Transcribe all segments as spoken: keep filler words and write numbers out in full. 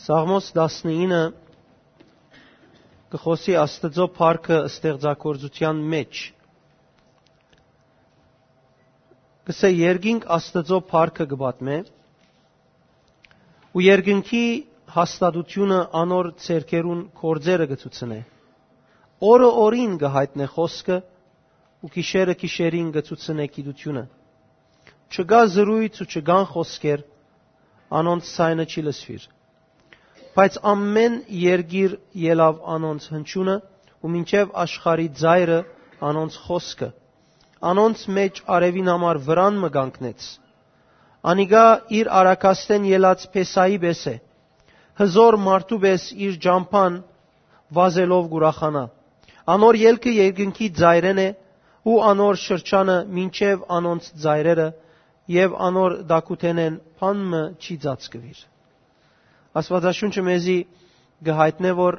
Սաղմոս տասնինը կը խօսի Աստուծոյ փառքը ստեղծագործութեան մէջ։ Կ'ըսէ. «Երկինք Աստուծոյ փառքը կը պատմէ, ու երկնքի հաստատութիւնը անոր ձեռքերուն գործերը կը ցուցնէ։ Օրը օրին կը յայտնէ խօսքը, ու գիշերը գիշերին կը ցուցնէ գիտութիւնը։ Չկայ զրոյց ու չկան խօսքեր, անոնց ձայնը չի լսուիր։ Բայց ամէն երկիր ելաւ անոնց հնչիւնը, ու մինչեւ աշխարհի ծայրը անոնց խօսքը։ Անոնց մէջ արեւին համար վրան մը կանգնեց։ Անիկա իր արագաստէն ելած փեսայի պէս է, հզօր մարդու պէս իր ճամբան վազելով կ'ուրախանայ։ Անոր ելքը երկնքի ծայրէն է, ու անոր շրջանը մինչեւ անոնց ծայրերը, եւ անոր տակութենէն բան մը չի ծածկուիր»։ Աստուածաշունչը մեզի կը յայտնէ, որ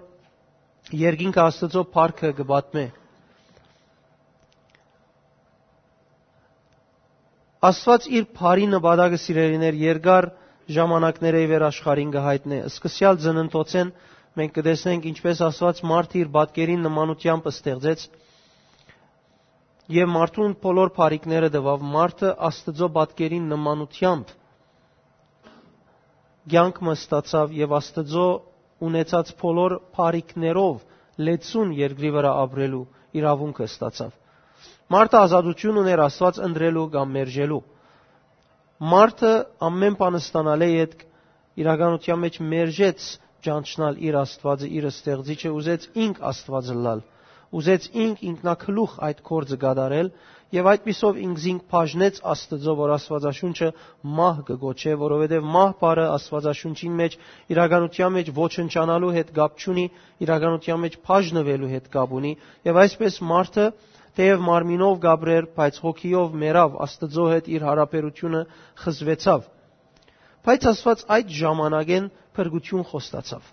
երկինքը Աստուծոյ փառքը կը պատմէ։ Աստուած իր փառի նպատակը, սիրելիներ, երկար ժամանակներէ ի վեր աշխարհին կը յայտնէ։ Սկսեալ ծննդոցէն մենք կը տեսնենք, ինչպէս Աստուած մարդը իր պատկերին նմանութեամբ ստեղծեց եւ մարդուն բոլոր փառիքները տուաւ։ Մարդը Աստուծոյ պատկերին նմանութեամբ կեանք մը ստացաւ եւ Աստուծոյ ունեցած բոլոր փառիքներով լեցուն երկրի վրայ ապրելու իրաւունքը ստացաւ։ Մարդը ազատութիւն ունէր Աստուած ընտրելու կամ մերժելու։ Մարդը ամէն բան ստանալէ ետք իրականութեան մէջ մերժեց ճանչնալ իր Աստուածը, իր ստեղծիչը, ուզեց ինք Աստուած ըլլալ, ուզեց ինք ինքնակլուխ այդ գործը կատարել, եւ այդպիսով ինքզինք բաժնեց Աստուծոյ, որ Աստուածաշունչը մահ կը կոչէ, որովհետեւ մահ բառը Աստուածաշունչին մէջ իրականութեան մէջ ոչնչանալու հետ կապ չունի, իրականութեան մէջ բաժնուելու հետ կապ ունի, եւ այսպէս մարդը թէեւ մարմինով կ'ապրէր, բայց հոգիով մեռաւ, Աստուծոյ հետ իր յարաբերութիւնը խզուեցաւ։ Բայց Աստուած այդ ժամանակէն փրկութիւն խոստացաւ։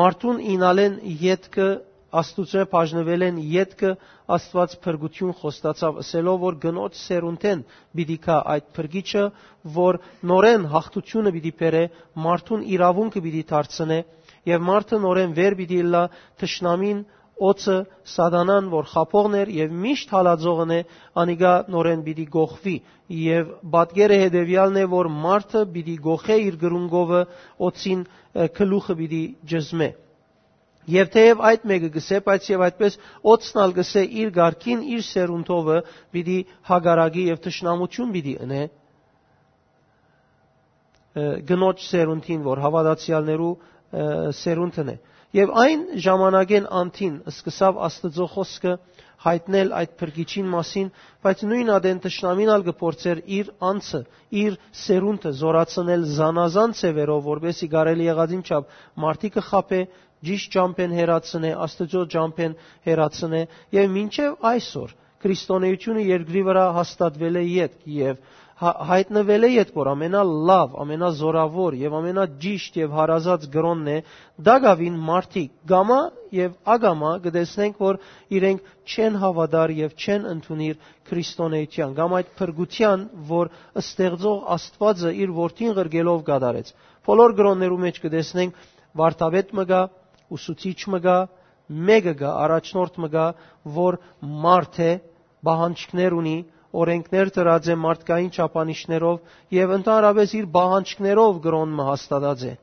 Մարդուն իյնալէն ետքը, Աստուծոյ բաժնուելէն ետքը Աստուած փրկութիւն խոստացաւ, ըսելով, որ կնոջ սերունդէն պիտի գայ այդ փրկիչը, որ նորէն յաղթութիւնը պիտի բերէ, մարդուն իրաւունքը պիտի դարձնէ, եւ մարդը նորէն վեր պիտի ըլլայ թշնամին, օձը, սատանան, որ խաբողն էր եւ միշտ հալածողն է, անիկա նորէն պիտի կոխուի, եւ պատկերը հետեւեալն է, որ մարդը պիտի կոխէ իր կրունկովը օձին, ը, գլուխը պիտի ճզմէ։ Եւ թէեւ այդ մէկը կ'ըսէ, բայց եւ այդպէս օձն ալ կ'ըսէ, իր կարգին, իր սերունդովը պիտի հակառակի եւ թշնամութիւն պիտի ընէ, ը, կնոջ սերունդին, որ հաւատացեալներու, ը, սերունդն է։ Եւ այն ժամանակէն անդին սկսաւ Աստուծոյ խօսքը յայտնել այդ փրկիչին մասին, բայց նոյն ատեն թշնամին ալ կը փորձէր իր անձը, իր սերունդը զօրացնել զանազան ձեւերով, որպէս զի կարելի եղածին չափ մարդիկը խաբէ, ճիշդ ճամբէն հեռացնէ, Աստուծոյ ճամբէն հեռացնէ, եւ մինչեւ այսօր Քրիստոնէութիւնը երկրի վրայ հաստատուելէ ետք եւ հա-, յայտնուելէ ետք, որ ամենալաւ, ամենազօրաւոր եւ ամենաճիշդ եւ հարազատ կրօնն է, տակաւին մարդիկ կամայ եւ ակամայ կը տեսնենք, որ իրենք չեն հաւատար եւ չեն ընդունիր Քրիստոնէութեան կամ այդ փրկութեան, որ ստեղծող Աստուածը իր որդին ղրկելով կատարեց։ Բոլոր կրօններու մէջ կը տեսնենք, վարդապետ մը կայ, ուսուցիչ մը կայ, մէկը կայ, առաջնորդ մը կայ, որ մարդ է, պահանջքներ ունի, օրենքներ դրած է մարդկային չափանիշներով եւ ընդհանրապես իր պահանջքներով կրօն մը հաստատած է։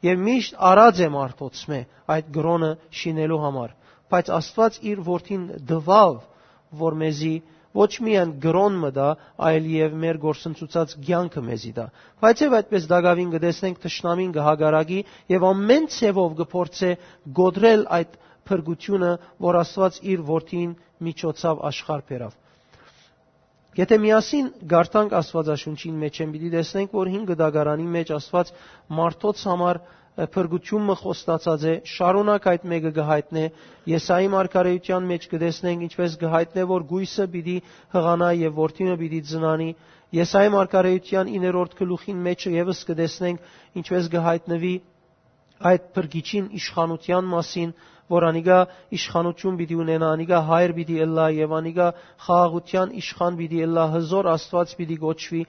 Եւ միշտ առած է մարդոցմէ այդ կրօնը շինելու համար։ Բայց Աստուած իր որդին տուաւ, որ մեզի ոչ միայն կրօն մը տայ, այլ եւ մեր գործընծուցած կեանքը մեզի տայ։ Բայց եւ այդպես տակաւին կը տեսնենք, թշնամին կը հակառակի եւ ամէն ձեւով կը փորձէ կոտրել այդ փրկութիւնը, որ Աստուած իր որդին միջոցաւ աշխարհ բերաւ։ Եթէ միասին կարդանք Աստուածաշունչին մէջէն, պիտի տեսնենք, որ հին կտակարանի մէջ Աստուած մարդոց համար, ը, փրկութիւն մը խոստացած է, շարունակ այդ մէկը կը յայտնէ։ Եսայի մարգարէութեան մէջ կը տեսնենք, ինչպէս կը յայտնէ, որ կոյսը պիտի յղանայ եւ որդի մը պիտի ծնանի։ Եսայի մարգարէութեան իններորդ գլուխին մէջ եւս կը տեսնենք, ինչպէս կը յայտնուի այդ փրկիչին իշխանութեան մասին, որ անիկա իշխանութիւն պիտի ունենայ, անիկա հայր պիտի ըլլայ եւ անիկա խաղաղութեան իշխան պիտի ըլլայ, հզօր Աստուած պիտի կոչուի,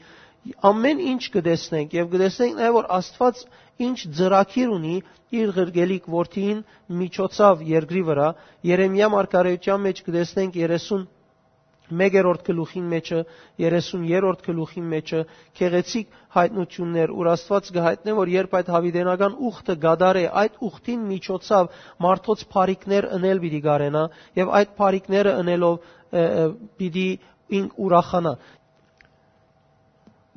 Ամեն ինչ կը տեսնենք եւ կը տեսնենք նաեւ, որ Աստուած ինչ ծրագիր ունի իր ղրկելիք որդին միջոցաւ երկրի վրայ։ Երեմիա մարգարեութեան մէջ կը տեսնենք երեսուն մեկերորդ գլուխին մէջը, երեսուն երրորդ գլուխին մէջը, գեղեցիկ յայտնութիւններ, ուր Աստուած կը յայտնէ, որ երբ այդ յաւիտենական ուխտը կատարէ, այդ ուխտին միջոցաւ մարդոց բարիքներ ընել պիտի կարենայ եւ այդ բարիքները ընելով, ը, ը, պիտի ինք ուրախանայ։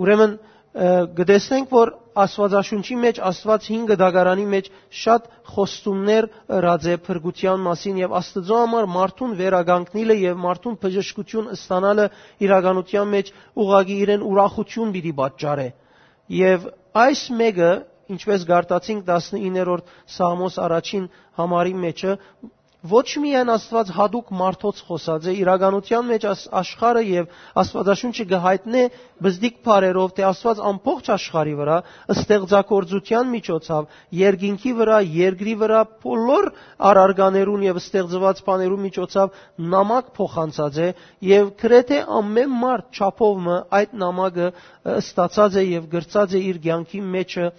Ուրեմն, ը, կը տեսնենք, որ Աստուածաշունչի մէջ, Աստուած հին կտակարանի մէջ շատ խոստումներ ըրած է փրկութեան մասին եւ Աստուծոյ համար մարդուն վերականգնիլը եւ մարդուն բժշկութիւն ստանալը իրականութեան մէջ ուղղակի իրեն ուրախութիւն պիտի պատճառէ։ Եւ այս մէկը, ինչպէս գարտացինք տասնիններորդ Սաղմոս առաջին համարի մէջը, ոչ միայն Աստուած յատուկ մարդոց խօսած է, իրականութեան մէջ աս-, աշխարհը եւ Աստուածաշունչը կը յայտնէ բզդիկ բառերով, թէ Աստուած ամբողջ աշխարհի վրայ ստեղծագործութեան միջոցաւ, երկինքի վրայ, երկրի վրայ, բոլոր առարկաներուն եւ ստեղծուած բաներուն միջոցաւ նամակ փոխանցած է եւ գրեթէ ամեն մարդ չափով մը այդ նամակը, ը, ստացած է եւ գրծած է իր կեանքի մէջը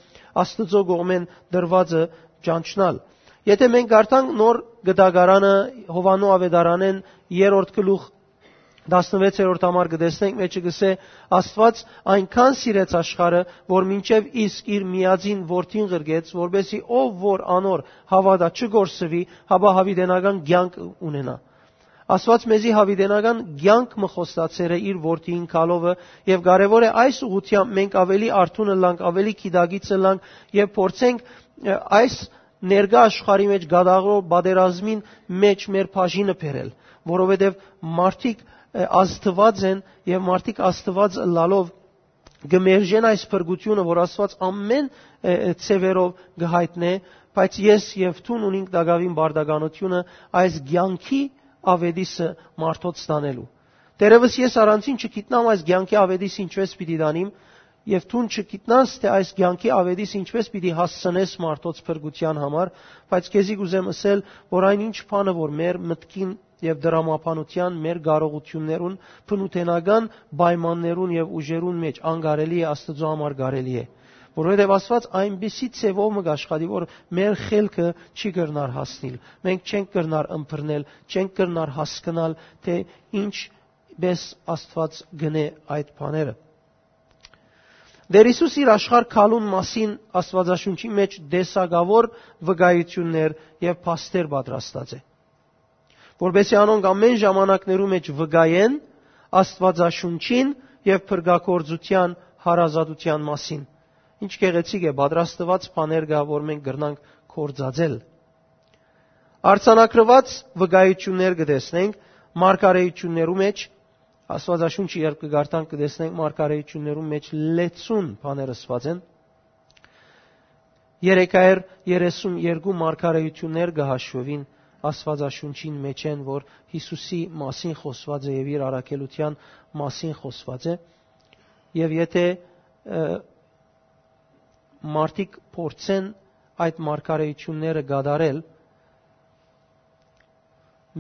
Աստուծոյ կողմէն տրուածը ճանչնալ։ Եթէ մենք կարդանք Նոր Գտակարանը, Յովհաննու Աւետարանէն երրորդ գլուխ, տասնվեցերորդ համար, կը տեսնենք, մէջը կ'ըսէ. «Աստուած այնքան սիրեց աշխարհը, որ մինչեւ իսկ իր միածին որդին ղրկեց, որպեսզի ով որ անոր հաւատայ չկորսուի, հապա յաւիտենական կեանք ունենայ»։ Աստուած մեզի յաւիտենական կեանք մը խոստացեր է իր որդիին գալովը, եւ կարեւոր է այս ուղղութեամբ մենք աւելի արթուն ըլլանք, աւելի գիտակից ըլլանք եւ փորձենք, ը, այս ներկայ աշխարհի մէջ կատարող պատերազմին մէջ մեր բաժինը բերել, որովհետեւ մարդիկ, ը, ազդուած են եւ մարդիկ ազդուած ըլլալով կը մերժեն այս փրկութիւնը, որ Աստուած ամեն, ը, ը, ձեւերով կը յայտնէ, բայց ես եւ դուն ունինք տակաւին պարտականութիւնը այս կեանքի աւետիսը մարդոց տանելու։ Դերևս ես առանձին չգիտնամ այս կեանքի աւետիս ինչպէս պիտի տանիմ, եւ դուն չգիտնաս, թէ այս կեանքի աւետիս ինչպէս պիտի հասցնես մարդոց փրկութեան համար, բայց քեզի կ'ուզեմ ըսել, որ այն ինչ բանը, որ մեր մտքին եւ դրամաբանութեան, մեր կարողութիւններուն, բնութենական պայմաններուն եւ ուժերուն մէջ անկարելի է, Աստուծոյ համար կարելի է։ Որովհետեւ Աստուած այնպիսի ձեւով մը կ'աշխատի, որ մեր խելքը չի կրնար հասնիլ, մենք չենք կրնար ըմբռնել, չենք կրնար հասկնալ, թէ ինչպէս Աստուած կ'ընէ այդ բաները։ Տէր Յիսուս իր աշխարհ գալուն մասին Աստուածաշունչի մէջ տեսակաւոր վկայութիւններ եւ փաստեր պատրաստած է, որպեսզի անոնք ամեն ժամանակներու մէջ վկայեն Աստուածաշունչին եւ փրկագործութեան հարազատութեան մասին։ Ինչ գեղեցիկ է, պատրաստուած բաներ կայ, որ մենք կրնանք գործածել։ Արձանագրուած վկայութիւններ կը տեսնենք մարգարեութիւններու մէջ, Աստուածաշունչը երբ կը կարդանք, կը տեսնենք մարգարեութիւններու մէջ լեցուն բաներ ըսուած են։ Երեքայր երեսուն երկու մարգարեութիւններ կը հաշուին Աստուածաշունչին մէջէն, որ Յիսուսի մասին խօսուած է եւ իր առաքելութեան մասին խօսուած է։ Եւ եթէ, ը, մարդիկ փորձեն այդ մարգարեութիւնները կատարել,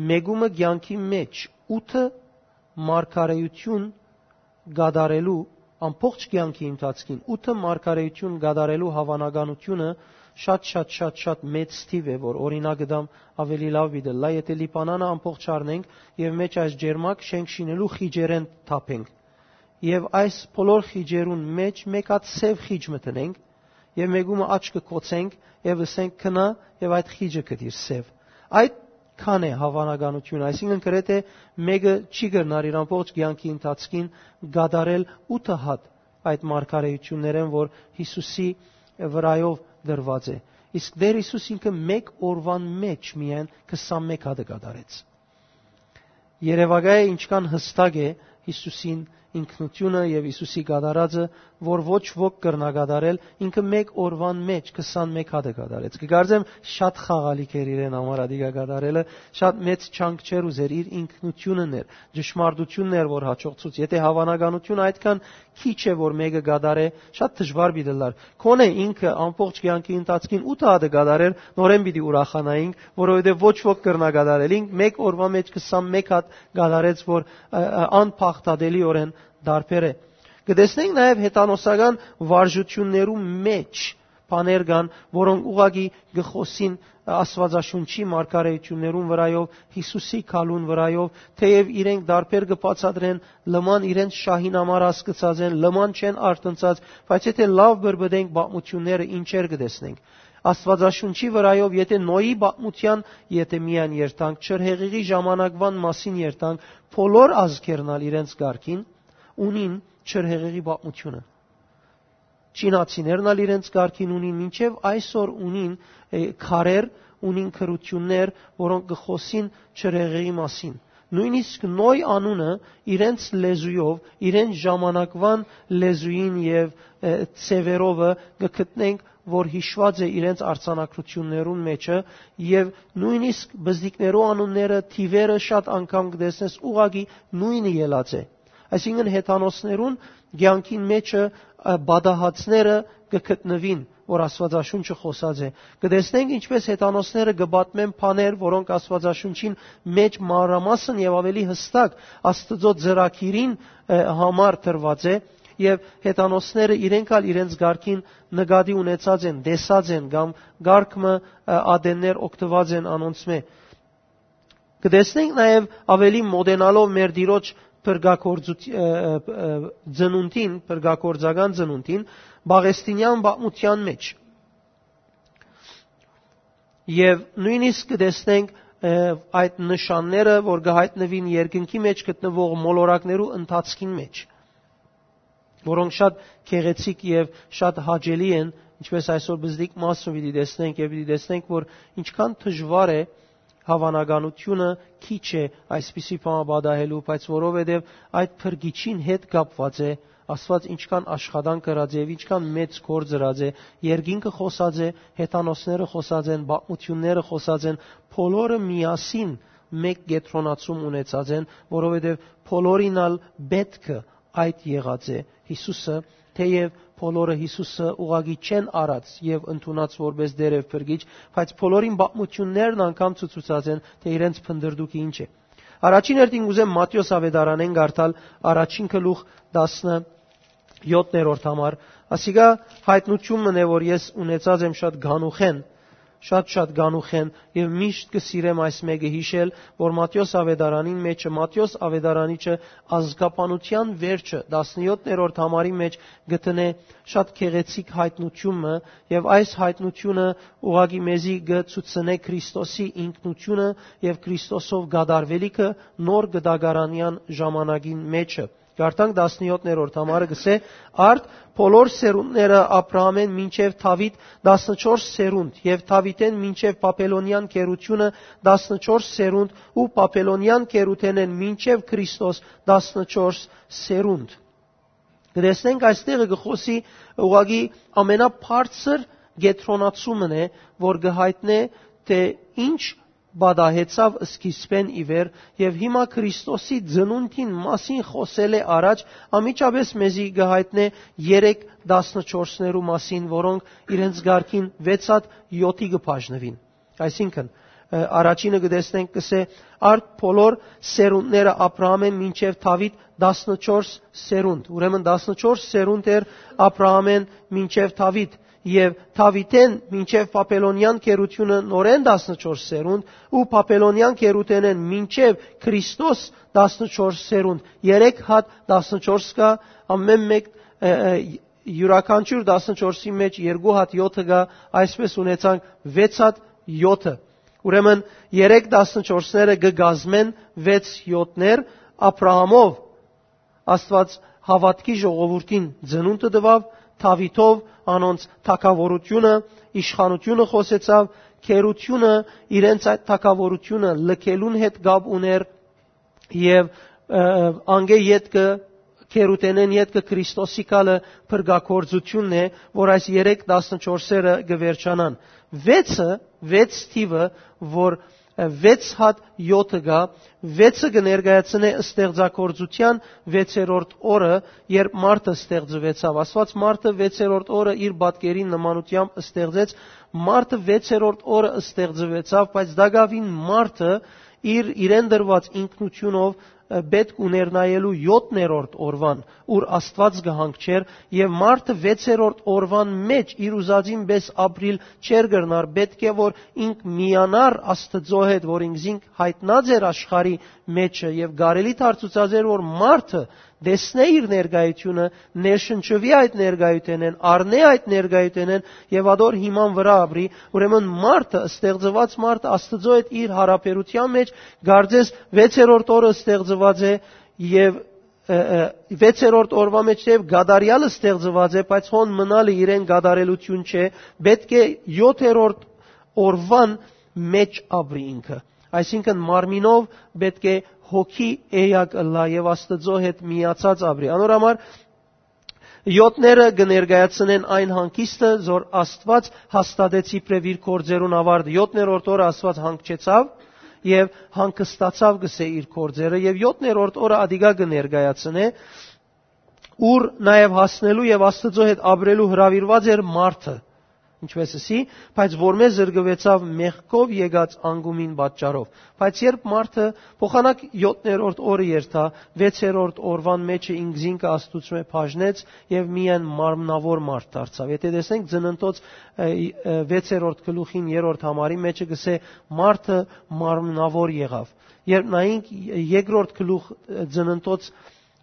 մեկումը կեանքի մէջ ութը մարգարեութիւն կատարելու, ամբողջ կեանքի ընթացքին ութը մարգարեութիւն կատարելու հաւանականութիւնը շատ, շատ, շատ, շատ մեծ թիւ է, որ օրինակ դամ աւելի լաւ պիտի լա, եթէ Լիբանանը ամբողջ առնենք եւ մէջ այս ջերմակ շենք շինելու խիճերէն թափենք։ Եւ այս բոլոր խիճերուն մէջ մէկ հատ սեւ խիճ մը դնենք, եւ մեկումը աչքը կոչենք եւ ըսենք. «Քնա եւ այդ խիճը կդիր սեւ»։ Այդ քան է հաւանականություն, այսինքն գրեթէ մեկը չի կրնար իր ամբողջ կեանքի ընթացքին կատարել ութը հատ այդ մարգարեութիւններէն, որ Յիսուսի վրայով դրուած է։ Իսկ Տէր Յիսուս ինքը մէկ օրուան մէջ միայն քսանմէկ հատը կատարեց։ Երեւակայ է ինչքան յստակ է Յիսուսին ինքնութիւնը եւ Յիսուսի կատարածը, որ ոչ ոք կրնայ կատարել, ինքը մէկ օրուան մէջ քսանմէկ հատը կատարեց։ Կկարծեմ, շատ խաղալիք էր իրեն համար ադիկա կատարելը, շատ մեծ չանք չէր ուզեր իր ինքնութիւնն էր, ճշմարտությունն էր, որ հաջողցուց։ Եթէ հաւանականությունը այդքան քիչ է, որ մեկը կատարէ, շատ դժուար պիտի լար։ Քոնէ ինքը ամբողջ կեանքի ընթացքին ութ հատը կատարեր, նորէն պիտի ուրախանայինք, որովհետեւ ոչ ոք կրնայ կատարել։ Ինք մէկ օրուան մէջ քսանմէկ հատ կատարեց, որ, ը, ը, անփախտատելիօրէն տարբեր է։ Կը տեսնենք նաեւ հեթանոսական վարժութիւններու մէջ բաներ կան, որոնք ուղղակի կը խօսին Աստուածաշունչի մարգարէութիւններուն վրայով, Յիսուսի գալուն վրայով, թէեւ իրենք դարբեր կը բացատրեն, լման իրենց շահին համար հասկցած են, լման չեն արթնցած, բայց եթէ լաւ բրբտենք պատմութիւնները, ինչեր կը տեսնենք։ Աստուածաշունչի վրայով, եթէ Նոյի պատմութեան, եթէ միայն երթանք, չրհեղեղի ժամանակվան մասին երթանք, բոլոր ազգերն ալ իրենց կարգին ունին չրհեղեղի պատմութիւնը։ Չինացիներն ալ իրենց կարգին ունին, մինչեւ այսօր ունին, ը, քարեր, ունին գրութիւններ, որոնք կը խօսին չրհեղեղի մասին։ Նոյնիսկ Նոյ անունը իրենց լեզուով, իրենց ժամանակվան լեզուին եւ, ը, ձեւերովը կը գտնենք, որ յիշուած է իրենց արձանագրութիւններուն մէջը, եւ նոյնիսկ բզդիկներու անունները, թիվերը շատ անգամ կը տեսնես, ուղղակի նոյնը ելած է։ Այսինքն, հեթանոսներուն կեանքին մէջը, ը, պատահածները կը գտնուին, որ Աստուածաշունչը խօսած է։ Կը տեսնենք, ինչպէս հեթանոսները կը պատմեն բաներ, որոնք Աստուածաշունչին մէջ մանրամասն եւ ավելի յստակ Աստուծոյ ծրագիրին, ը, համար տրուած է, եւ հեթանոսները իրենք ալ իրենց կարգին նկատի ունեցած են, տեսած են կամ կարգ մը, ը, ատեններ օգտուած են անոնցմէ։ Կը տեսնենք նաեւ, ավելի մոտենալով մեր Տիրոջ փրկագործութ-, ը, ը, ը, ծնունդին, փրկագործական ծնունդին, Պաղեստինեան պատմութեան մէջ։ Եւ նոյնիսկ կը տեսնենք, ը, այդ նշանները, որ կը յայտնուին երկնքի մէջ գտնուող մոլորակներու ընթացքին մէջ, որոնք շատ գեղեցիկ եւ շատ հաճելի են, ինչպէս այսօր բզդիկ մասը պիտի տեսնենք եւ պիտի տեսնենք, որ ինչքան դժուար է, հաւանականութիւնը քիչ է այսպիսի բան պատահելու, բայց որովհետեւ այդ փրկիչին հետ կապուած է, Աստուած ինչքան աշխատանք ըրած է եւ ինչքան մեծ գործ ըրած է, երկինքը խօսած է, հեթանոսները խօսած են, պատմութիւնները խօսած են, բոլորը միասին մէկ կեդրոնացում ունեցած են, որովհետեւ բոլորին ալ պէտքը այդ եղած է Յիսուսը, թէեւ բոլորը Յիսուսը ուղղակի չեն առած եւ ընդունած որպէս Տէր եւ Փրկիչ, բայց բոլորին պատմութիւններն անգամ ցուցուցած են, թէ իրենց փնտռտուքը ինչ է։ Առաջին հերթին կ'ուզեմ Մատթէոս աւետարանէն կարդալ առաջին գլուխ տասնեթերորդ համար։ Ասիկա յայտնութիւն մըն է, որ ես ունեցած եմ շատ գանուխեն, շատ-շատ գանուխեն, եւ միշտ կը սիրեմ այս մէկը յիշել, որ Մատթէոս աւետարանին մէջը, Մատթէոս աւետարանիչը ազգաբանութեան վերջը, տասնեթերորդ համարի մէջ գտնէ շատ գեղեցիկ յայտնութիւն մը, եւ այս յայտնութիւնը ուղղակի մեզի կը ցուցնէ Քրիստոսի ինքնութիւնը եւ Քրիստոսով կատարուելիքը նոր կտակարանեան ժամանակին մէջը։ Կարդանք տասնեթերորդ համարը, կսէ. «Արդ բոլոր սերունդները Աբրահամէն մինչեւ Դաւիթ տասնչորս սերունդ, եւ Դաւիթէն մինչեւ Բաբելոնեան գերութիւնը տասնչորս սերունդ, ու Բաբելոնեան գերութենէն մինչեւ Քրիստոս տասնչորս սերունդ»։ Կը տեսնենք, այստեղը կը խօսի ուղղակի ամենաբարձր կեդրոնացումն է, որ կը յայտնէ, թէ ինչ պատահեցաւ սկիզբէն ի վեր, եւ հիմա Քրիստոսի ծնունդին մասին խօսելէ առաջ անմիջապէս մեզի կը յայտնէ երեք տասնչորսներու մասին, որոնք իրենց կարգին վեց հատ յոթի կը բաժնուին։ Այսինքն, ը, առաջինը կը տեսնենք, կսէ. «Արդ բոլոր սերունդները Աբրահամէն մինչեւ Դաւիթ տասնչորս սերունդ»։ Ուրեմն տասնչորս սերունդ էր Աբրահամէն մինչեւ Դաւիթ, եւ Դաւիթէն մինչեւ Բաբելոնեան գերութիւնը նորէն տասնչորս սերունդ, ու Բաբելոնեան գերութենէն մինչեւ Քրիստոս տասնչորս սերունդ։ Երեք հատ տասնչորս կայ, ամէն մէկ, ը, ը, յուրաքանչիւր տասնչորսի մէջ երկու հատ յոթը կայ, այսպէս ունեցանք վեց հատ յոթը։ Ուրեմն երեք տասնչորսները կը կազմեն վեց յոթներ, Աբրահամով Աստուած հաւատքի ժողովուրդին ծնունդը տուաւ, Դաւիթով անոնց թագաւորութիւնը, իշխանութիւնը խօսեցաւ, գերութիւնը իրենց այդ թագաւորութիւնը լքելուն հետ կապ ունէր, եւ, ը, անկէ ետքը, գերութենէն ետքը Քրիստոսի գալը փրկագործութիւնն է, որ այս երեք տասնչորսերը կը վերջանան։ Վեցը, վեց թիվը, որ, ը, վեց հատ յոթը կայ, վեցը կը ներկայացնէ ստեղծագործութեան վեցերորդ օրը, երբ մարդը ստեղծուեցաւ։ Աստուած մարդը վեցերորդ օրը իր պատկերին նմանութեամբ ստեղծեց, մարդը վեցերորդ օրը ստեղծուեցաւ, բայց տակաւին մարդը իր, իրեն տրուած ինքնութիւնով ը, պէտք ուներ նայելու յոթներորդ օրուան, ուր Աստուած կը հանգչէր, եւ մարդը վեցերորդ օրուան մէջ իր ուզածին պէս ապրիլ չէր կրնար, պէտք է որ ինք միանար Աստուծոյ հետ, որ ինքզինք յայտնած էր աշխարհի մէջը, եւ կարելի դարձուցած էր, որ մարդը տեսնէ իր ներկայությունը, ներշնչուի այդ ներկայութենէն, առնէ այդ ներկայութենէն եւ ադոր հիման վրայ ապրի։ Ուրեմն մարդը, ստեղծուած մարդը Աստուծոյ հետ իր յարաբերութեան մէջ, կարծես վեցերորդ օրը ստեղծուած է եւ, ը, ը, վեցերորդ օրուան մէջ թէեւ կատարեալ ստեղծուած է, բայց հոն մնալը իրեն կատարելութիւն չէ, պէտք է յոթերորդ օրուան մէջ ապրի ինքը։ Այսինքն մարմինով պէտք է հոգի էակ ըլլայ եւ Աստուծոյ հետ միացած ապրի։ Անոր համար յոթները կը ներկայացնեն այն հանգիստը, որ Աստուած հաստատեց իբրեւ իր գործերուն աւարտը։ Յոթներորդ օրը Աստուած հանգչեցաւ եւ հանգստացաւ, կսէ, իր գործերը, եւ յոթներորդ օրը ադիկա կը ներկայացնէ, ուր նաեւ հասնելու եւ Աստուծոյ հետ ապրելու հրաւիրուած էր մարդը, ինչպես ըսի, բայց որմէ զրկուեցաւ մեղքով եկած անկումին պատճառով։ Բայց երբ մարդը փոխանակ յոթներորդ օրը երթայ, վեցերորդ օրուան մէջը ինքզինքը Աստուծմէ բաժնեց եւ միայն մարմնաւոր մարդ դարձաւ։ Եթէ տեսնենք Ծննդոց, ը, ը, վեցերորդ գլուխին երրորդ համարի մէջը կսէ. «Մարդը մարմնաւոր եղաւ»։ Երբ նայենք երկրորդ գլուխ, ը, Ծննդոց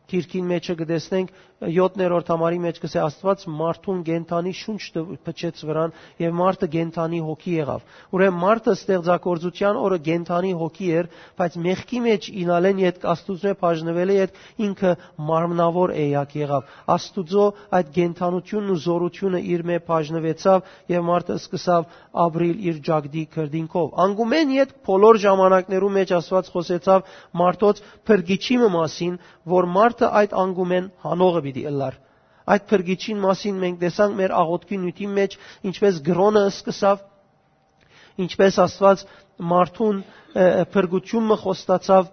գիրքին մէջը կը տեսնենք, յոթներորդ համարի մէջ կսէ. «Աստուած մարդուն կենդանի շունչ տ-, փչեց վրան եւ մարդը կենդանի հոգի եղաւ»։ Ուրեմն մարդը ստեղծագործութեան օրը կենդանի հոգի էր, բայց մեղքի մէջ ինալեն ետք, Աստուծմէ բաժնուելէ ետք ինքը մարմնաւոր էակ եղաւ։ Աստուծոյ այդ կենդանութիւնն ու զօրութիւնը իրմէ բաժնուեցաւ եւ մարդը սկսաւ ապրիլ իր ճակտի քրտինքով։ Անկումէն ետք բոլոր ժամանակներու մէջ Աստուած խօսեցաւ մարդոց փրկիչի մը մասին, որ մարդը այդ անկումէն հանողը պիտի ըլլար։ Այդ փրկիչին մասին մենք տեսանք մեր աղօթքի նիւթին մէջ, ինչպես կրօնը սկսաւ, ինչպես Աստուած մարդուն, ը, ը, փրկութիւն մը խոստացաւ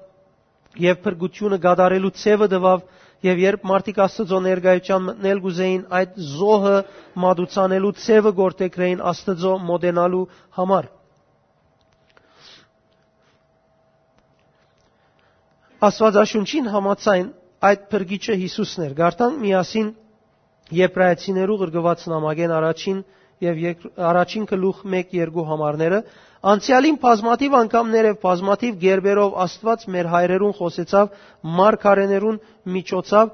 եւ փրկութիւնը կատարելու ձեւը տուաւ, եւ երբ մարդիկ Աստուծոյ ներկայութեան մտնել կ'ուզէին, այդ զոհը մատուցանելու ձեւը գործեգրէին Աստուծոյ մոտենալու համար։ Աստուածաշունչին համաձայն այդ փրկիչը Յիսուսն էր։ Կարդանք միասին Եբրայեցիներու ղրկուած նամակէն առաջին եւ երկ-, առաջին գլուխ մէկ երկու համարները։ «Անցեալին բազմաթիւ անգամներ եւ բազմաթիվ կերպերով Աստուած մեր հայրերուն խօսեցաւ մարգարէներուն միջոցով,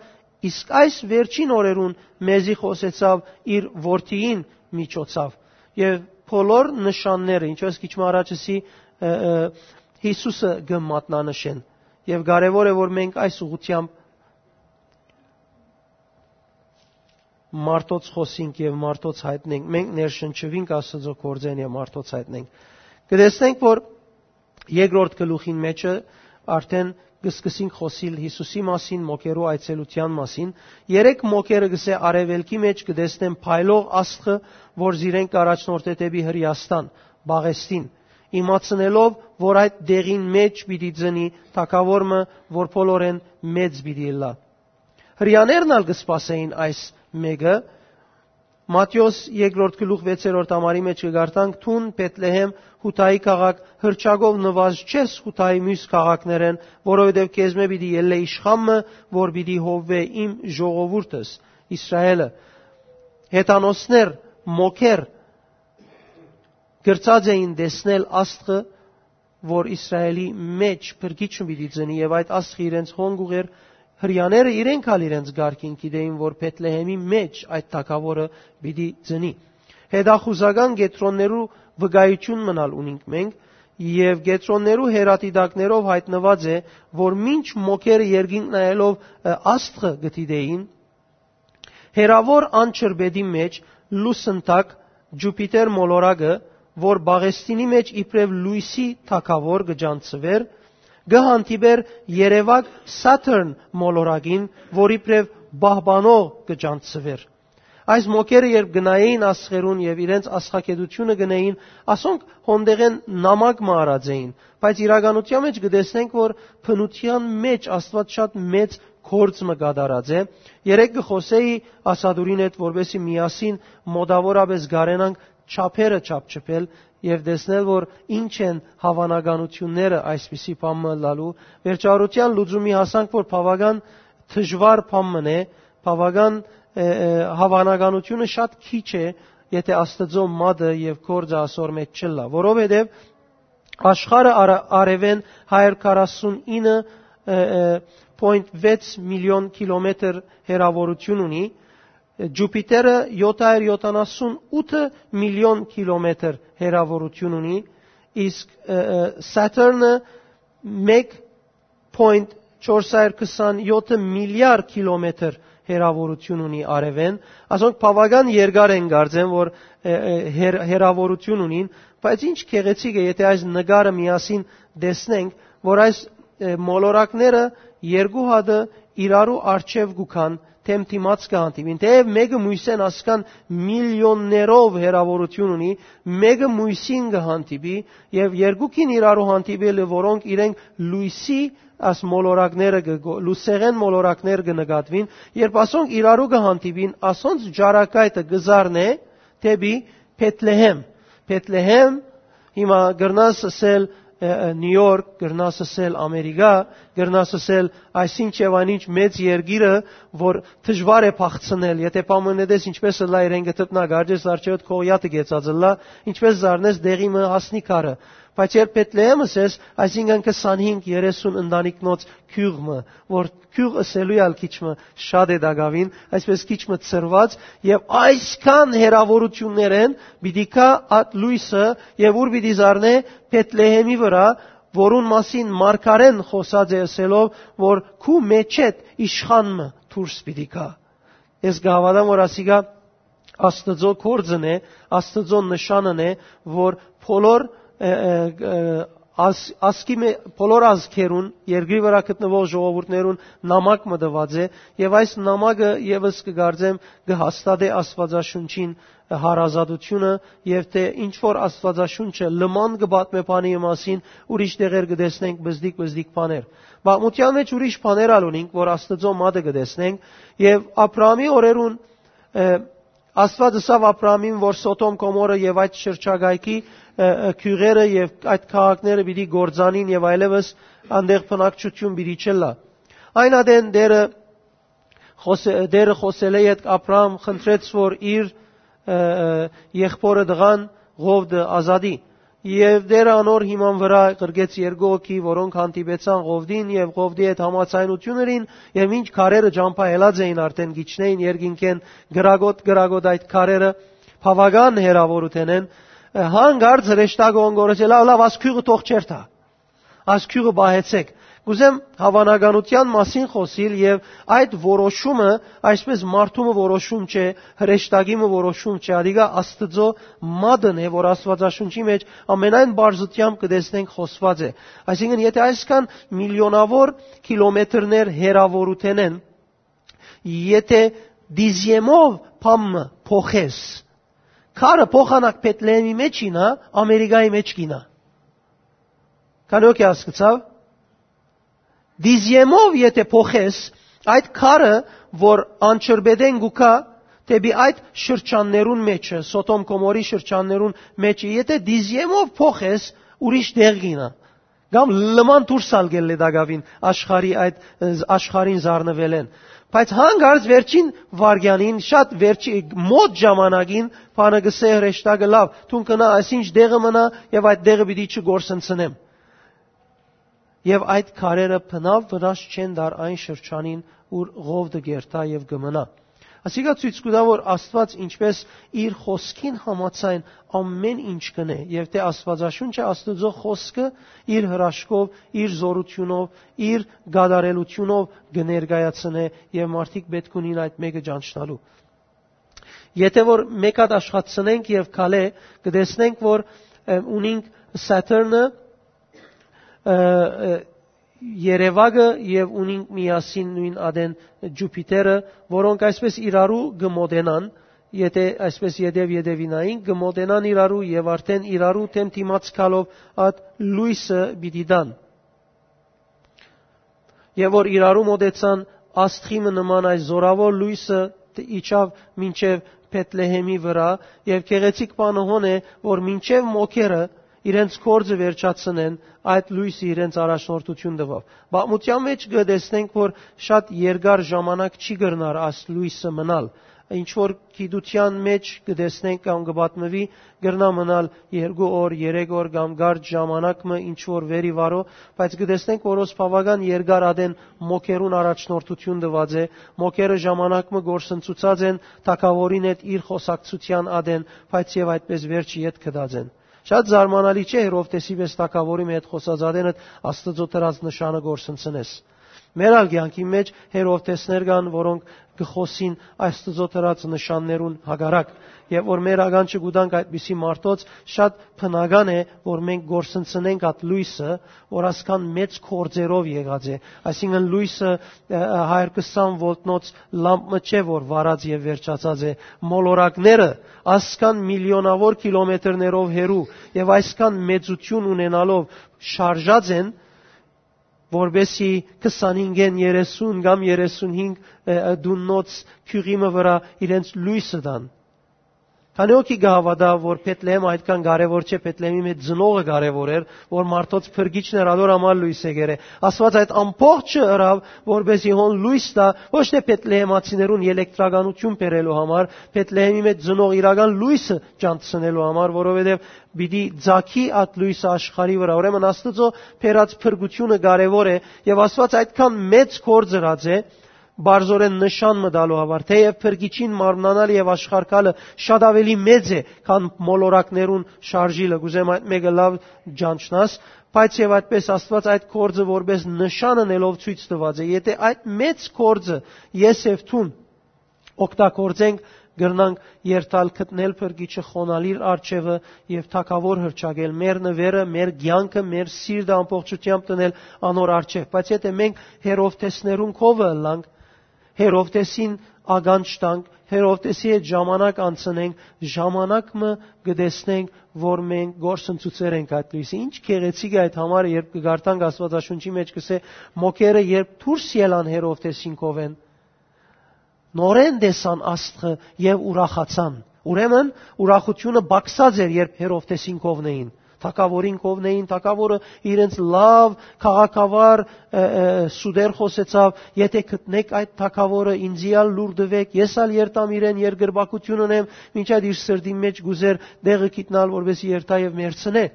իսկ այս վերջին օրերուն մեզի խօսեցաւ իր որդիին միջոցով»։ Եւ բոլոր նշանները, ինչպես քիչ մը առաջ ըսի, ը, ը, Յիսուսը կը մատնանշեն։ Եւ կարեւոր է, որ մենք այս ուղղությամբ մարդոց խօսինք եւ մարդոց յայտնենք, մենք ներշնչուինք Աստուծոյ գործէն եւ մարդոց յայտնենք։ Կը տեսնենք, որ երկրորդ գլուխին մէջը արդեն կը սկսենք խօսիլ Յիսուսի մասին, մոգերու այցելութեան մասին։ Երեք մոգերը, կսէ, արեւելքի մէջ կը տեսնեն փայլող աստղը, որ զիրենք կ'առաջնորդէ դէպի Հրեաստան, Պաղեստին, իմացնելով, որ այդ դեղին մէջ պիտի ծնի թագաւոր մը, որ բոլորէն մեծ պիտի ըլլայ։ Հրեաներն ալ կը սպասէին այս մէկը։ Մատթէոս երկրորդ գլուխ վեցերորդ համարի մէջ կը կարդանք. «Դուն, Բեթլեհեմ, Յուդայի քաղաք, հրճակով նուազ չես Յուդայի միւս քաղաքներէն, որովհետեւ քեզմէ պիտի ելլէ իշխան մը, որ պիտի հովուէ իմ ժողովուրդս, Իսրայէլը»։ Հեթանոսներ, մոգեր, կրցած էին տեսնել աստղը, որ Իսրայէլի մէջ փրկիչ մը պիտի ծնի, եւ այդ աստղը իրենց հոն կ'ուղղէր։ Հրեաները իրենք ալ իրենց կարգին գիտէին, որ Բեթլեհեմի մէջ այդ թագաւորը պիտի ծնի։ Հետախուզական կեդրոններու վկայութիւն մնալ ունինք մենք, եւ կեդրոններու հեռադիտակներով յայտնուած է, որ մինչ մոգերը երկինք նայելով, ը, աստղը կը դիտէին, հեռաւոր անջրպետի մէջ լուսնտակ Ջուպիտեր մոլորակը, որ Պաղեստինի մէջ իբրեւ լոյսի թագաւոր կը ճանչցուէր, կը հանդիպէր երեւակ Սաթըրն մոլորակին, որ իբրեւ պահպանող կը ճանչցուէր։ Այս մոգերը երբ կը նայէին աստղերուն եւ իրենց աստղագիտութիւնը կ'ընէին, ասոնք հոն տեղէն նամակ մը առած էին, բայց իրականութեան մէջ կը տեսնենք, որ բնութեան մէջ Աստուած շատ մեծ գործ մը կատարած է։ Երեկ կը խօսէի Ասադուրին հետ, որպէսզի միասին մօտաւորապէս կարենանք չափերը չափչփել եւ տեսնել, որ ինչ են հաւանականութիւնները այսպիսի բան մը ըլլալու։ Վերջավորութեան լուծումի հասանք, որ բաւական դժուար բան մն է, բաւական, ը, ը, հաւանականութիւնը շատ քիչ է, եթէ Աստուծոյ մատը եւ գործը ասոր մէջ չըլլայ, որովհետեւ աշխարհը արա-, արեւէն հարիւր քառասունինը, ը, ը, պոյնթ վեց միլիոն կիլոմետր հեռաւորութիւն ունի, Ջուպիտերը յոթ հարիւր յոթանասուն ութ միլիոն կիլոմետր հեռաւորութիւն ունի, իսկ, ը, ը, Սաթերնը մէկ պոյնթ չորս հարիւր քսանեթ միլիարդ կիլոմետր հեռաւորութիւն ունի արեւէն։ Ասոնք բաւական երկար են, կարծեմ, որ, ը, ը, հեռ-, հեռաւորութիւն ունին, բայց ինչ գեղեցիկ է, եթէ այս նկարը միասին տեսնենք, որ այս, ը, մոլորակները երկու հատը իրարու առջեւ կու գան, դէմ դիմաց կը հանդիպին։ Թէեւ մէկը մոյսէն ասկան միլիոններով հեռաւորութիւն ունի, մէկը մոյսին կը հանդիպի, եւ երկուքին իրարու հանդիպելը, որոնք իրենք լոյսի այս մոլորակները կը գո-, լուսեղէն մոլորակներ կը նկատուին, երբ ասոնք իրարու կը հանդիպին, ասոնց ճառագայթը կը զարնէ դէպի Բեթլեհեմ։ Բեթլեհեմ, հիմա կրնաս ըսել, ը, ը, Նիու Յորք, կրնաս ըսել Ամերիկա, կրնաս ըսել այսինչ եւ այնինչ մեծ երկիրը, որ դժուար է փախցնել, եթէ պայմաննետես ինչպես ըլլայ իրեն կը դպնայ, կարճես արջերդ քողիաթը կեցած ըլլայ, ինչպես զարնես դեղի մը հասնի քարը։ Բայց երբ Բեթլեհեմ ըսես, այսինքն քսանհինգ երեսուն ընտանիքնոց գիւղ մը, որ գիւղ ըսելու ալ քիչ մը շատ է տակաւին, այսպես քիչ մը ցրված, եւ այսքան հեռաւորութիւններէն պիտի գայ այդ լոյսը, եւ ուր պիտի զարնէ, Բեթլեհեմի վրայ, որուն մասին մարգարէն խօսած է ըսելով, որ քու մէջէդ իշխան մը դուրս պիտի գայ։ Ես կը հաւատամ, որ ասիկա Աստուծոյ գործն է, Աստուծոյ նշանն է, որ բոլոր, ը, ը, ը, ազ-, ազգի մէ-, բոլոր ազգերուն, երկրի վրայ գտնուող ժողովուրդներուն նամակ մը տուած է, եւ այս նամակը եւս կը կարծեմ կը հաստատէ Աստուածաշունչին հարազատութիւնը, եւ թէ ինչ որ Աստուածաշունչը լման կը պատմէ բանի մասին, ուրիշ տեղեր կը տեսնենք բզդիկ-բզդիկ բաներ։ Պատմութեան մէջ ուրիշ բաներ ալ ունինք, որ Աստուծոյ մատը կը տեսնենք, եւ Աբրահամի օրերուն, ը, Աստուած ըսաւ Աբրահամին, որ Սոդոմ, Գոմորը եւ այդ շրջակայքի, ը, ը, գիւղերը եւ այդ քաղաքները պիտի կործանին եւ այլեւս անտեղ բնակչութիւն պիտի չըլլայ։ Այն ատեն Տէրը խօս-, Տէրը խօսելէ ետք Աբրահամ խնդրեց, որ իր, ը, ը, եղբօրը տղան Ղովդը ազատի։ Եւ Տէրը անոր հիման վրայ ղրկեց երկու հոգի, որոնք հանդիպեցան Ղովդին եւ Ղովդի հետ համաձայնութիւն ըրին, եւ մինչ քարերը ճամբայելած էին, արդէն կ'իջնէին երկինքէն կրակոտ-կրակոտ այդ քարերը, բաւական հեռաւորութենէն, ը, հանկարծ հրեշտակը յոն գոռեց. «Լաւ, լաւ, աս գիւղը թող չերթայ։ Աս գիւղը պահեցէք»։ Կ'ուզեմ հաւանականութեան մասին խօսիլ եւ այդ որոշումը, այսպես մարդու մը որոշում չէ, հրեշտակի մը որոշում չէ, ադիկա Աստուծոյ մատն է, որ Աստուածաշունչի մէջ ամենայն պարզութեամբ կը տեսնենք խօսուած է։ Այսինքն, եթէ այսքան միլիոնաւոր կիլոմետրներ հեռաւորութենէն, եթէ դիզիեմով բան մը փոխես, քարը փոխանակ Բեթլեհեմի մէջ ինա, Ամերիկայի մէջ կինա։ Քանի՞ հոգի հասկցաւ։ Դիզիեմով եթէ փոխես, այդ քարը, որ անջրպետէն կու գայ դէպի այդ շրջաններուն մէջը, Սոդոմ Գոմորի շրջաններուն մէջը, եթէ դիզիեմով փոխես, ուրիշ տեղ կինա։ Կամ լման դուրս ալ կ'ելլէ տակաւին աշխարհի այդ, ը, աշխարհին զարնուելէն։ Բայց հանկարծ վերջին վայրկեանին, շատ վերջի, մոտ ժամանակին, բանը կ'ըսէ հրեշտակը. «Լաւ, դուն գնա, այսինչ տեղը մնայ եւ այդ տեղը պիտի չկորսնցնեմ»։ Եւ այդ քարերը բնաւ վնաս չեն տար այն շրջանին, ուր Ղովդը կ'երթայ եւ կը մնայ։ Ասիկա ցոյց կու տայ, որ Աստուած ինչպես իր խօսքին համաձայն ամէն ինչ կ'ընէ, եւ թէ Աստուածաշունչը, Աստուծոյ խօսքը, իր հրաշքով, իր զօրութիւնով, իր կատարելութիւնով կը ներկայացնէ, եւ մարդիկ պէտք ունին այդ մէկը ճանչնալու։ Եթէ որ մէկ հատ աշխատցնենք եւ քալէ, կը տեսնենք, որ, ը, ունինք Սաթերնը, ը, ը, Երեւակը եւ ունինք միասին նոյն ատեն Ջուպիտերը, որոնք այսպես իրարու կը մոտենան, եթէ այսպես ետեւ-ետեւինային կը մոտենան իրարու եւ արդէն իրարու դէմ դիմաց գալով այդ լոյսը պիտի տան։ Եւ որ իրարու մոտեցան, աստղի մը նման այս զօրաւոր լոյսը տ-, իջաւ մինչեւ Բեթլեհեմի վրայ, եւ գեղեցիկ բանը հոն է, որ մինչեւ մոքերը իրենց գործը վերջացնեն, այդ լոյսը իրենց առաջնորդութիւն տուաւ։ Պատմութեան մէջ կը տեսնենք, որ շատ երկար ժամանակ չի կրնար այս լոյսը մնալ։ Ինչ որ գիտութեան մէջ կը տեսնենք կամ կը պատմուի, կրնայ մնալ երկու օր, երեք օր կամ կարճ ժամանակ մը, ինչ որ վեր ի վարոյ, բայց կը տեսնենք, որ հոս բաւական երկար ատեն մոքերուն առաջնորդութիւն տուած է, մոքերը ժամանակ մը կորսնցուցած են, թագաւորին հետ իր խօսակցութեան ատեն, բայց եւ այդպես վերջը ետ գտած են։ Շատ զարմանալի չէ, Հերովդէսի պէս թագաւորի մը հետ խօսած ատենդ Աստուծոյ տրած նշանը կորսնցնես։ Մեր ալ կեանքի մէջ Հերովդէսներ կան, որոնք կը խօսին Աստուծոյ տրած նշաններուն հակառակ, եւ որ մեր ականջը կու տանք այդպիսի մարդոց, շատ բնական է, որ մենք կորսնցնենք այդ լոյսը, որ ասկան մեծ գործերով եղած է, այսինքն լոյսը, ը, ը, հարիւր քսան վոլտնոց լամպ մը չէ, որ վառած եւ վերջացած է, մոլորակները ասկան միլիոնաւոր կիլոմետրներով հեռու եւ այսքան մեծութիւն ունենալով շարժած են, որպեսզի քսանհինգ երեսուն կամ երեսունհինգ, ը, ը, տուննոց գիւղի մը վրայ իրենց լոյսը տան։ Քանի՞ հոգի կը հաւատայ, որ Բեթլեհեմ այդքան կարեւոր չէ, Բեթլեհեմի մէջ ծնողը կարեւոր էր, որ մարդոց փրկիչն էր, ադոր համար լոյս եկեր է։ Աստուած այդ ամբողջը ըրաւ, որպեսզի հոն լոյս տայ, ոչ թէ բեթլեհեմացիներուն ելեկտրականութիւն բերելու համար, Բեթլեհեմի մէջ ծնող իրական լոյսը ճանչցնելու համար, որովհետեւ պիտի ծագի այդ լոյսը աշխարհի վրայ։ Ուրեմն Աստուծոյ բերած փրկութիւնը կարեւոր է, եւ Աստուած այդքան մեծ գործ ըրած է, բարձորեն նշան մը տալու համար, թէեւ փրկիչին մարմնանալը եւ աշխարհ գալը շատ աւելի մեծ է, քան մոլորակներուն շարժիլը, կ'ուզեմ այդ մէկը լաւ ճանչնաս, բայց եւ այդպես Աստուած այդ գործը որպես նշան ընելով ցոյց տուած է։ Եթէ այդ մեծ գործը ես եւ դուն օգտագործենք, կրնանք երթալ գտնել փրկիչը, խոնալ իր առջեւը եւ թագաւոր հռչակել, մեր նուերը, մեր կեանքը, մեր սիրտը ամբողջութեամբ տնել անոր առջեւ։ Բայց եթէ մենք Հերովդէսներուն քովը ըլլանք, Հերովդէսին ականջ տանք, Հերովդէսի հետ ժամանակ անցնենք, ժամանակ մը կը տեսնենք, որ մենք գործընծուցեր ենք այդ լոյսը։ Ինչ գեղեցիկ է այդ համար, երբ կը կարդանք Աստուածաշունչի մէջ, կ'ըսէ. «Մոքերը երբ դուրս ելան Հերովդէսին քովէն, նորէն տեսան աստղը եւ ուրախացան»։ Ուրեմն ուրախութիւնը պակսած էր, երբ Հերովդէսին քովնէին, թագաւորին քովնէին, թագաւորը իրենց լաւ քաղաքավար, ը, ը, սուտեր խօսեցաւ. «Եթէ գտնէք այդ թագաւորը, ինծի ալ լուր տուէք, ես ալ երթամ իրեն, երկրպագութիւն ընեմ», մինչ այդ իր սրտին մէջ կ'ուզէր տեղը գիտնալ, որպեսզի երթայ եւ մեռցնէ։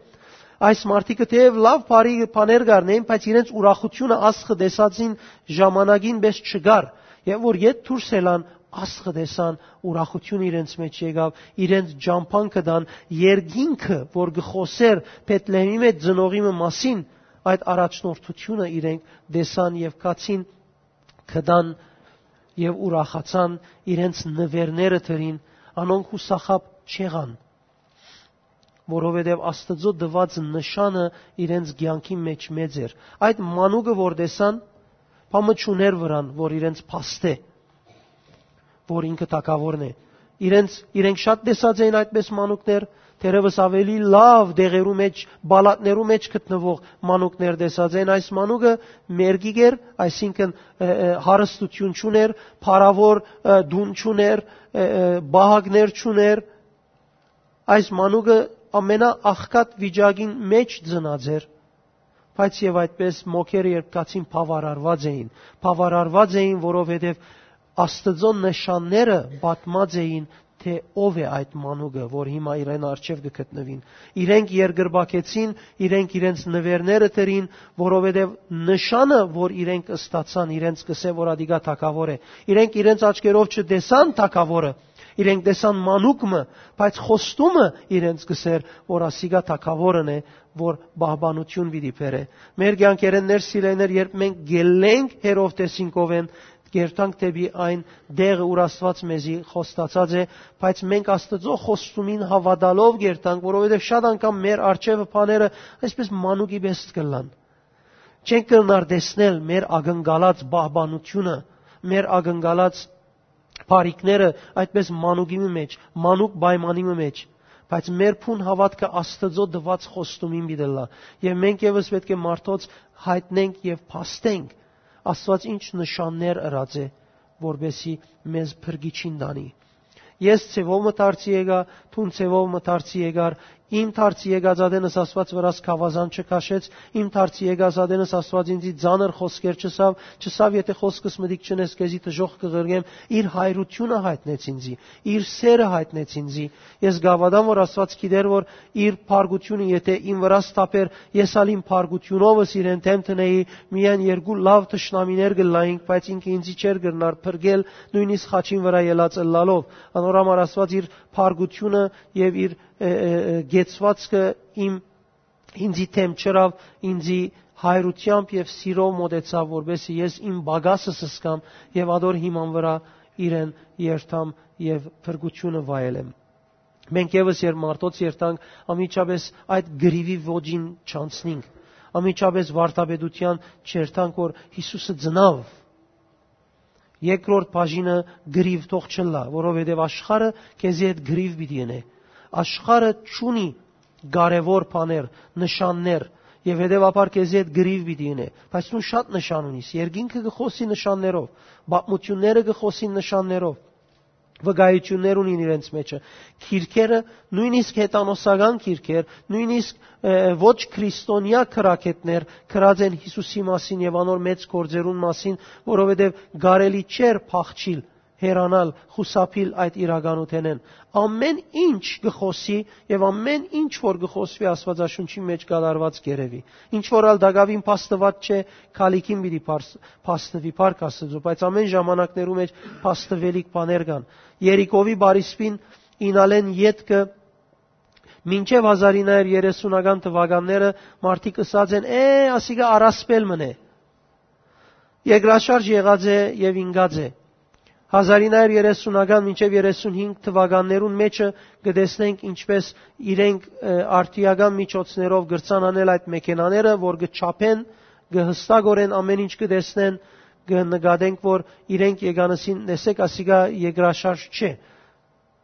Այս մարդիկը թէեւ լաւ բարի բաներ կ'առնէին, բայց իրենց ուրախութիւնը աստղը տեսածին ժամանակին պէս չկար, եւ որ ետ դուրս ելան, աստղը տեսան, ուրախութիւն իրենց մէջ եկաւ, իրենց ճամբան գտան, երկինքը, որ կը խօսէր Բեթլեհեմի մէջ ծնողի մը մասին, այդ առաջնորդութիւնը իրենք տեսան եւ գացին, գտան եւ ուրախացան, իրենց նուերները դրին, անոնք յուսախաբ չեղան, որովհետեւ Աստուծոյ տուած նշանը իրենց կեանքի մէջ մեծ էր։ Այդ մանուկը որ տեսան, բան մը չունէր վրան, որ իրենց փաստէ, որ ինքը թագաւորն է։ Իրենց, իրենք շատ տեսած էին այդպես մանուկներ, թերեւս աւելի լաւ տեղերու մէջ, պալատներու մէջ գտնուող մանուկներ տեսած էին։ Այս մանուկը մերկիկ էր, այսինքն, ը, ը, հարստութիւն չունէր, փառաւոր, ը, տուն չունէր, ը, ը, պահակներ չունէր։ Այս մանուկը ամենաաղքատ վիճակին մէջ ծնած էր, բայց եւ այդպես մոքերը երբ գացին, բաւարարված էին, բաւարարված էին, որովհետեւ Աստուծոյ նշանները պատմած էին, թէ ով է այդ մանուկը, որ հիմա իրեն առջեւ կը գտնուին։ Իրենք երկրպագեցին, իրենք իրենց նուերները դրին, որովհետեւ նշանը, որ իրենք ստացան, իրենց կ'ըսէ, որ ադիկա թագաւոր է։ Իրենք իրենց աչքերով չտեսան թագաւորը, իրենք տեսան մանուկ մը, բայց խոստումը իրենց կ'ըսէր, որ ասիկա թագաւորն է, որ պահպանութիւն պիտի բերէ։ Մեր կեանքերէն, սիրելիներ, երբ մենք գելլենք Հերովդէսին քովէն, կերթանք դէպի այն տեղը, ուր Աստուած մեզի խոստացած է, բայց մենք Աստուծոյ խոստումին հաւատալով կերթանք, որովհետեւ շատ անգամ մեր առջեւը բաները այսպես մանուկի պէս կ'ըլլան։ Չենք կրնար տեսնել մեր ակնկալած պահպանութիւնը, մեր ակնկալած բարիքները այդպես մանուկի մը մէջ, մանուկ պայմանի մը մէջ, բայց մեր բուն հաւատքը Աստուծոյ տուած խոստումին պիտի ըլլայ։ Եւ մենք եւս պէտք է մարդոց յայտնենք եւ փաստենք Աստուած ինչ նշաններ ըրած է, որպեսզի մեզ փրկիչին տանի։ Ես ձեւով մը դարձի եկայ, դուն ձեւով մը դարձի եկար, իմ դարձի եկած ատենս Աստուած վրաս գաւազան չքաշեց, իմ դարձի եկած ատենս Աստուած ինձի ծանր խօսքեր չըսաւ, չըսաւ, «Եթէ խօսքս մտիկ չընես, քեզի դժոխք կը ղրկեմ»։ Իր հայրութիւնը յայտնեց ինձի, իր սէրը յայտնեց ինձի։ Ես կ'հաւատամ, որ Աստուած գիտեր, որ իր փառքութիւնը եթէ իմ վրաս թափէր, ես ալ իմ փառքութիւնովս իրեն դէմ դնէի, միայն երկու լաւ թշնամիներ կ'ըլլայինք, բայց ինքը ինձի չէր կրնար փրկել, նոյնիսկ խաչին վրայ ելած ըլլալով։ Անոր համար Աստուած իր փառքութիւնը եւ իր, ը, ը, ը, կեցուածքը իմ, ինձի դէմ չըրաւ, ինձի հայրութեամբ եւ սիրով մօտեցաւ, որպեսզի ես իմ պակասս զգամ եւ ատոր հիման վրայ իրեն երթամ եւ փրկութիւնը վայելեմ։ Մենք եւս, երբ մարդոց երթանք, անմիջապէս այդ կռիւի ոճին չանցնինք, անմիջապէս վարդապետութեան չերթանք, որ Յիսուսը ծնաւ։ Երկրորդ բաժինը կռիւ թող չըլլայ, որովհետեւ աշխարհը քեզի հետ կռիւ պիտի ընէ։ Աշխարհը չունի կարեւոր բաներ, նշաններ, եւ հետեւաբար քեզի հետ կռիւ պիտի ընէ։ Բայց դուն շատ նշան ունիս, երկինքը կը խօսի նշաններով, պատմութիւնները կը խօսին նշաններով, վկայություններ ունին իրենց մեջը։ Գիրքերը, նոյնիսկ հեթանոսական գիրքեր, նոյնիսկ, ը, ոչ քրիստոնեայ գրագէտներ գրած են Յիսուսի մասին եւ անոր մեծ գործերուն մասին, որովհետեւ կարելի չէր փախչիլ, հեռանալ, խուսափիլ այդ իրականութենէն։ Ամէն ինչ կը խօսի եւ ամէն ինչ որ կը խօսուի Աստուածաշունչի մէջ կատարուած կ'երեւի։ Ինչ որ ալ տակաւին փաստուած չէ, քալիքին պիտի փարս-, փաստուի, փառք Աստուծոյ, բայց ամէն ժամանակներու մէջ փաստուելիք բաներ կան։ Երիկովի բարիսպին իյնալէն ետքը մինչեւ հազար ինը հարիւր երեսունական թուականները մարդիկ ըսած են. «Է, ասիկա առասպել մըն է։ Երկրաշարժ եղած է եւ ինկած է»։ Հազար ինը հարիւր երեսունական մինչեւ երեսունհինգ թուականներուն մէջը կը տեսնենք ինչպէս իրենք, ը, արդիական միջոցներով կրցան անել այդ մեքենաները, որ կը չափեն, կը հստակորեն ամէն ինչ կը տեսնեն, կը նկատենք, որ իրենք եկան ըսին. «Տեսէք, ասիկա երկրաշարժ չէ,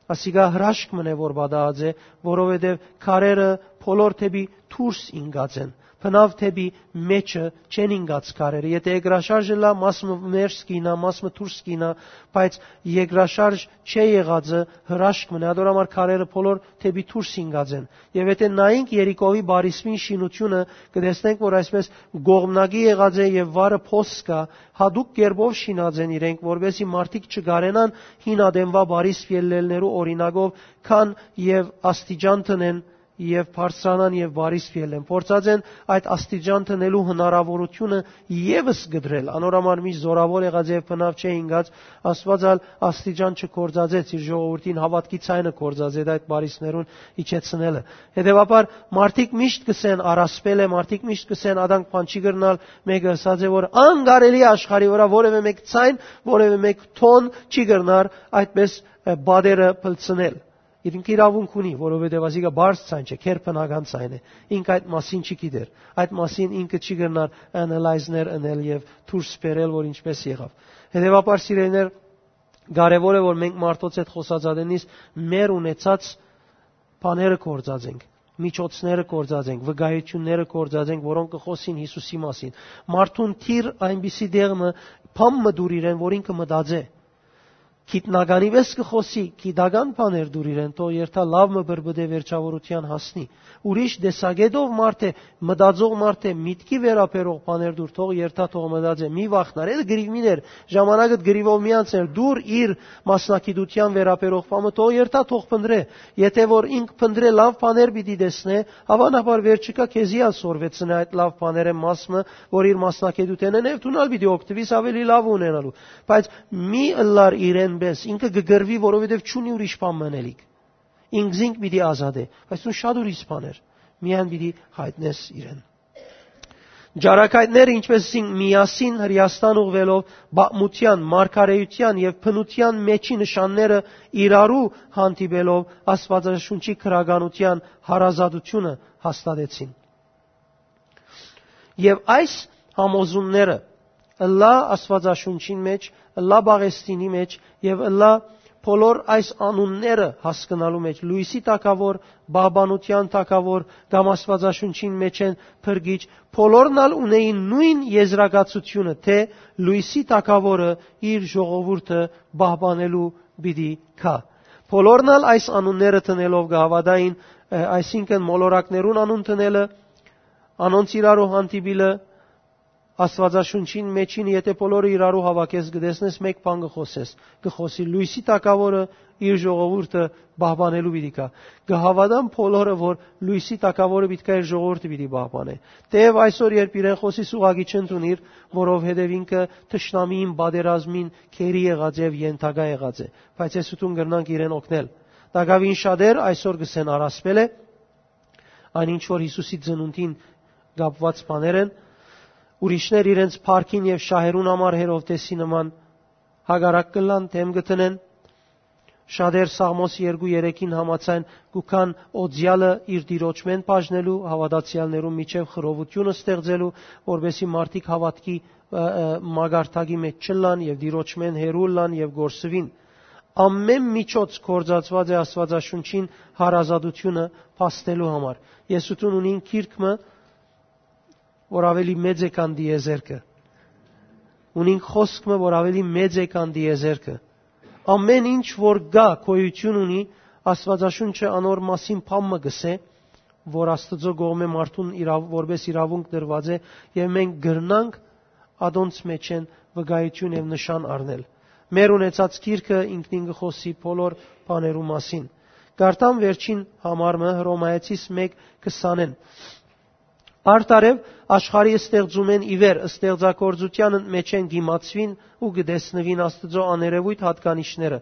ասիկա հրաշք մըն է, որ պատահած է, որովհետեւ քարերը բոլոր դէպի դուրս ինկած են, բնաւ դէպի մէջը չեն ինկած քարերը։ Եթէ երկրաշարժ ըլլայ, մաս մը ներս կ'իյնայ, մաս մը դուրս կ'իյնայ, բայց երկրաշարժ չէ եղածը հրաշք մըն է, ատոր համար քարերը բոլոր դէպի դուրս ինկած են»։ Եւ եթէ նայենք Երիկովի բարիսպին շինութիւնը, կը տեսնենք, որ այսպես կողմնակի եղած է եւ վարը փոս կայ, յատուկ կերպով շինած են իրենք, որպեսզի մարդիկ չկարենան հին ատենուայ բարիսպ ելլելներու օրինակով գան եւ աստիճան դնեն եւ բարձրանան եւ բարիսպ ելլեն։ Փորձած են այդ աստիճան դնելու հնարաւորութիւնը եւս կտրել։ Անոր համար միշտ զօրաւոր եղած եւ բնաւ չէ ինկած, Աստուած ալ աստիճան չգործածեց, իր ժողովուրդին հաւատքի ձայնը գործածեց այդ բարիսպներուն իջեցնելը։ Հետեւաբար մարդիկ միշտ կ'ըսեն. «Առասպել է», մարդիկ միշտ կ'ըսեն. «Ադանք բան չի կրնալ»։ Մէկը ըսած է, որ անկարելի է աշխարհի վրայ որեւէ մէկ ձայն, որեւէ մէկ թոն չի կրնար այդպես, ը, պատերը փլցնել։ Ինքը իրաւունք ունի, որովհետեւ ասիկա բարձ ձայն չէ, քերբնական ձայն է։ Ինք այդ մասին չի գիտեր։ Այդ մասին ինքը չի կրնար analyze-ներ ընել եւ դուրս բերել, որ ինչպես եղաւ։ Հետեւաբար, սիրելիներ, կարեւոր է, որ մենք մարդոց հետ խօսած ատենից մեր ունեցած բաները գործած ենք, միջոցները գործած ենք, վկայությունները գործած ենք, որոնք կը խօսին Յիսուսի մասին։ Մարդուն դիր այնպիսի դեղ մը, բան մը դուր իրեն, որ ինքը մտածէ։ Գիտնականի պես կը խօսի, գիտական բաներ դուր իրեն, թող երթայ լաւ մը բրբտէ, վերջաւորութեան հասնի։ Ուրիշ տեսակետով մարդ է, մտածող մարդ է, միտքի վերաբերող բաներ դուր, թող երթայ, թող մտածէ, մի վախնար, էդ կռիվ մի ներ, ժամանակդ կռիվով մի անցներ, դուր իր մասնագիտութեան վերաբերող բանը, թող երթայ, թող փնտրէ։ Եթէ որ ինք փնտրէ, լաւ բաներ պիտի տեսնէ, հաւանաբար վերջիկայ քեզի ալ սորվեցնէ այդ լաւ բաներէն մաս մը, որ իր մասնագիտութենէն է, եւ դուն ալ պիտի օգտուիս ավելի լաւ ունենալու։ Բայց մի ըլլար իրեն պես, ինքը կը կռվի, որովհետեւ չունի ուրիշ բան մնելիք։ Ինքզինք պիտի ազատէ, բայց դուն շատ ուրիշ բաներ միայն պիտի յայտնես իրեն։ Ճարակայտները, ինչպես ասինք, միասին Հրեաստան ուղղվելով, պատմութեան, մարգարէութեան եւ բնութեան մեջի նշանները իրարու հանդիպելով, Աստուածաշունչի գրականութեան հարազատությունը հաստատեցին։ Եւ այս համոզումները ըլլայ Աստուածաշունչին մէջ, ըլլայ Պաղեստինի մէջ եւ ըլլայ բոլոր այս անունները հասկնալու մէջ, լոյսի թագաւոր, պահպանութեան թագաւոր կամ Աստուածաշունչին մէջէն փրկիչ, բոլորն ալ ունէին նոյն եզրակացութիւնը, թէ լոյսի թագաւորը իր ժողովուրդը պահպանելու պիտի գայ։ Բոլորն ալ այս անունները դնելով կը հաւատային, ը, այսինքն՝ մոլորակներուն անուն դնելը, անոնց իրարու հանդիպիլը, Աստուածաշունչին մեջին, եթէ բոլորը իրարու հաւաքես, կը տեսնես, մէկ բան կը խօսես, կը խօսի լոյսի թագաւորը իր ժողովուրդը պահպանելու պիտի գայ։ Կը հաւատան բոլորը, որ լոյսի թագաւորը պիտի գայ, իր ժողովուրդը պիտի պահպանէ։ Թէեւ այսօր, երբ իրեն խօսիս, ուղղակի չընդունիր, որովհետեւ ինքը թշնամիին պատերազմին գերի եղած է եւ ենթակայ եղած է, բայց ես ու դուն կրնանք իրեն օգնել։ Տակաւին շատեր այսօր կ'ըսեն՝ առասպել է, այն ինչ որ Յիսուսի ծնունդին կապուած բաներ են, ուրիշներ իրենց փառքին եւ շահերուն համար Հերովդէսի նման հակառակ կ'ըլլան, դէմ կը դնեն։ Շատեր Սաղմոս երկու երեքին համաձայն կու գան օծեալը իր տիրոջմէն բաժնելու, հաւատացեալներուն միջեւ խռովութիւնը ստեղծելու, որպէսզի մարդիկ հաւատքի, ը, ը, մակարդակի մէջ չըլլան եւ տիրոջմէն հեռու ըլլան եւ կորսուին։ Ամէն միջոց գործածուած է Աստուածաշունչին հարազատութիւնը փաստելու համար։ Ես ու դուն ունին գիրք մը, որ աւելի մեծ է քան տիեզերքը։ Ունին խօսք մը, որ աւելի մեծ է քան տիեզերքը։ Ամէն ինչ որ կայ, գոյութիւն ունի, Աստուածաշունչը անոր մասին բան մը կ'ըսէ, որ Աստուծոյ կողմէ մարդուն իրաւ-, որպէս իրաւունք տրուած է, եւ մենք կրնանք ատոնց մէջէն վկայութիւն եւ նշան առնել։ Մեր ունեցած գիրքը ինքնին կը խօսի բոլոր բաներու մասին։ Կարդամ վերջին համար մը, Հռոմայեցիս մէկ քսանէն։ Արդարեւ, աշխարհի ստեղծումէն ի վեր, ստեղծագործութեան մէջէն կ'իմացուին ու կը տեսնուին Աստուծոյ աներեւոյթ յատկանիշները,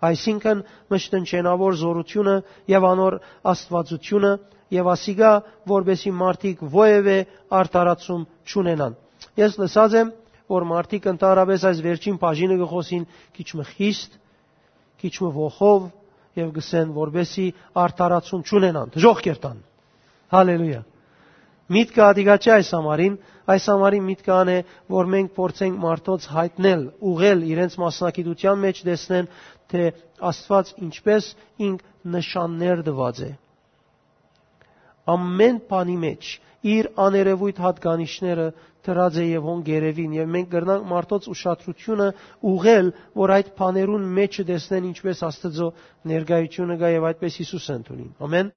այսինքն՝ մշտնջենաւոր զօրութիւնը եւ անոր աստուածութիւնը, եւ ասիկա, որպէսզի մարդիկ որեւէ արդարացում չունենան։ Ես լսած եմ, որ մարդիկ ընդհանրապէս այս վերջին բաժինը կը խօսին քիչ մը խիստ, քիչ մը ոխով, եւ կ'ըսեն, որպէսզի արդարացում չունենան, դժոխք կ'երթան։ Հալելույա։ Միտքը ատիկա չէ այս համարին, այս համարին միտքը ան է, որ մենք փորձենք մարդոց յայտնել, ուղղել, իրենց մասնագիտութեան մէջ տեսնեն, թէ Աստուած ինչպէս ինք նշաններ տուած է։ Ամէն բանի մէջ իր աներեւոյթ յատկանիշները դրած է եւ հոն կ'երեւին, եւ մենք կրնանք մարդոց ուշադրութիւնը ուղղել, որ այդ բաներուն մէջը տեսնեն ինչպէս Աստուծոյ ներկայութիւնը կայ եւ այդպէս Յիսուսը ընդունին։ Ամէն։